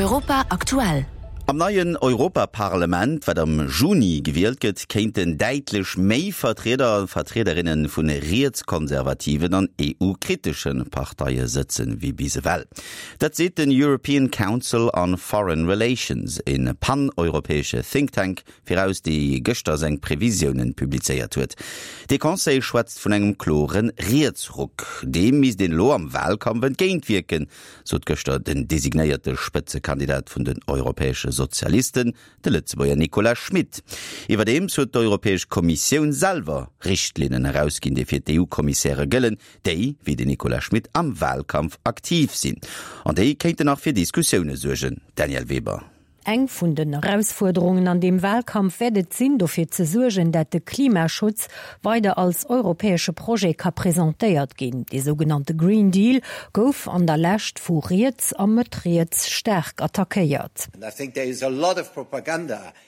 Europa aktuell. Am neien Europaparlament, wat am Juni gewielt gëtt, kéinten däitlech méi Vertrieder a Vertriederinne vu rietskonservativen an EU-kritesche Parteie sëtzen, wéi bis ewell. Dat seet den European Council on Foreign Relations, e pan-europäesche Think Tank, viraus, dee gëschter seng Previsiounen publizéiert huet. Dee Conseil schwätzt vun engem klore Rietsruck. Deem misst een elo am Wahlkampf entgéintwierken, sot gëschter den designéierte Spëtzekandidat vun den europäesche Sozialisten, de Lëtzebuerger Nicolas Schmit. Iwwerdeems huet d'Europäesch Kommissioun selwer Richtlinnen erausginn, déi fir d'EU-Kommissäre gëllen, déi, wéi den Nicolas Schmit, am Wahlkampf aktiv sinn. An déi kéinten nach fir Diskussioune suergen. Danièle Weber. Eng vun den Erausfuerderungen an deem Wahlkampf wäert et sinn, dofir ze suergen, dat de Klimaschutz weider als europäesche Projet ka presentéiert ginn. Dee sougenannte Green Deal gouf an der Lescht vu riets a Mëtt-riets staark attackéiert.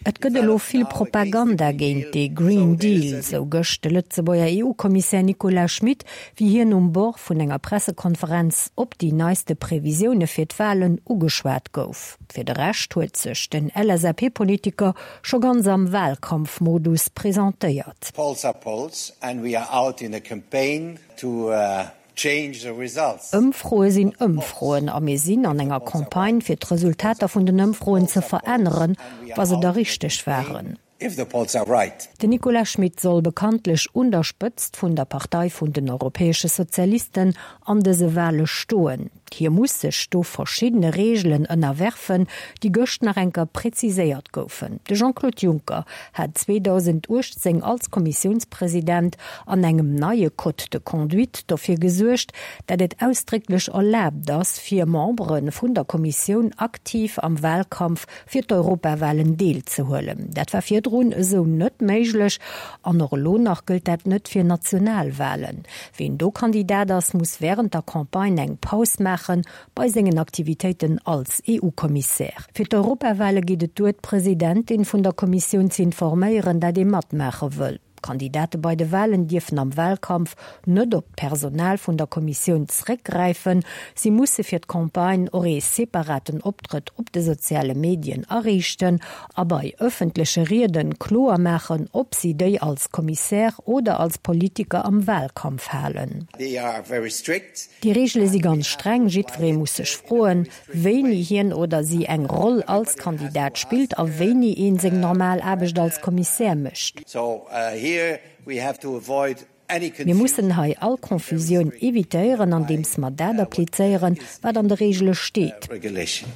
Et gëtt elo vill Propaganda géint dee Green Deal, sou gëscht de Lëtzebuerger EU-Kommissär Nicolas Schmit, wéi hien um Bord vun enger Pressekonferenz op déi neiste Previsioune fir d'Wahlen ugeschwat gouf. Fir de Rescht huet sech den LSAP-Politiker scho ganz am Wahlkampfmodus presentéiert. Polls are polls and we are out in a campaign to change the results. Ëmfroe sinn Ëmfroen a mir sinn an enger Campagne fir d'Resultater vun den Ëmfroen ze veränneren, wa se da richteg waren. If the polls are right. Den Nicolas Schmit soll bekanntlech un der Spëtzt vun der Partei vun den Europäesche Sozialisten an dëse Wale stoen. Hie muss sech do verschiddene Reegelen ënnerwerfen, déi gëscht nach enker präziséiert goufen. De Jean-Claude Juncker hat 2018 als Kommissiounspresident an engem neie Code de conduite dofir gesuergt, dat et ausdrécklech erlaabt ass, fir Membere vun der Kommissioun aktiv am Walkampf fir d'Europawahlen deelzehuelen. Dat war virdrun esou net méiglech an och elo nach gëllt dat net fir Nationalwahlen. Ween do Kandidat ass, muss wärend der Campagne eng Paus maache bei sengen Aktivitéiten als EU-Kommissär. Fir d'Europawahle geet et duer, d'Presidentin vun der Kommissioun ze informéieren, dat ee matmaache wëll. D'Kandidate bei de Walen dierfen am Walkampf net op d'Personal vun der Kommissioun zréckgräifen. Si musse fir d'Campagne och ee separaten Optrëtt op de soziale Medien ariichten a bei ëffentleche Rieden kloer maachen, ob si déi als Kommissär oder als Politiker am Walkampf halen. Déi Reegele si ganz streng, jiddweree muss sech froen, wéini hien oder si eng Roll als Kandidat spillt a wéini ee seng normal Aarbecht als Kommissär mécht. Mir mussen hei all Confusioun evitéieren, andeems mer dat applizéieren, wat an de Reegele steet,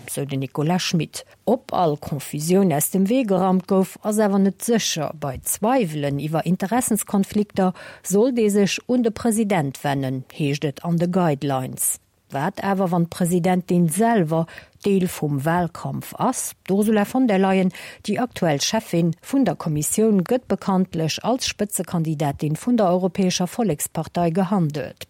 sou den Nicolas Schmit. Ob all Confusioun aus dem Wee geraumt gouf, ass awer net sécher. Bei Zweiwelen iwwer Interessenskonflikter sollt ee sech un de President wennen, heescht et an de Guidelines. Wat awer, wann d'Presidentin selwer Deel vum Wahlkampf ass? D'Ursula von der Leyen, déi aktuell Cheffin vun der Kommissioun, gëtt bekanntlech als Spëtzekandidatin vun der Europäescher Vollekspartei gehandelt.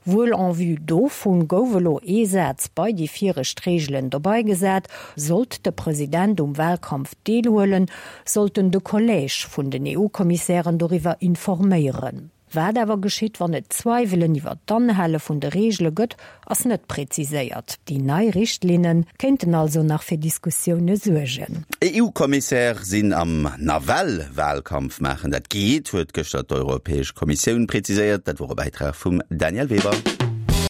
Wuel en vue dovun gouf elo ee Saz bei déi viregt Reegelen dobei gesat, Sollt de President um Wahlkampf deelhuelen, sollt en de Collège vun den EU-Kommissären doriwwer informéieren. Wat awer geschitt, wann et Zweiwelen iwwer d'Anhale vun de Reegele gëtt, ass net präziséiert. Déi nei Richtlinne kéinten also nach fir Diskussioune suergen. EU-Kommissär sinn am nawell Wahlkampf maachen, dat geet, huet gëschter d'Europäesch Kommissioun präziséiert. Dat wor e Bäitrag vum Danièle Weber.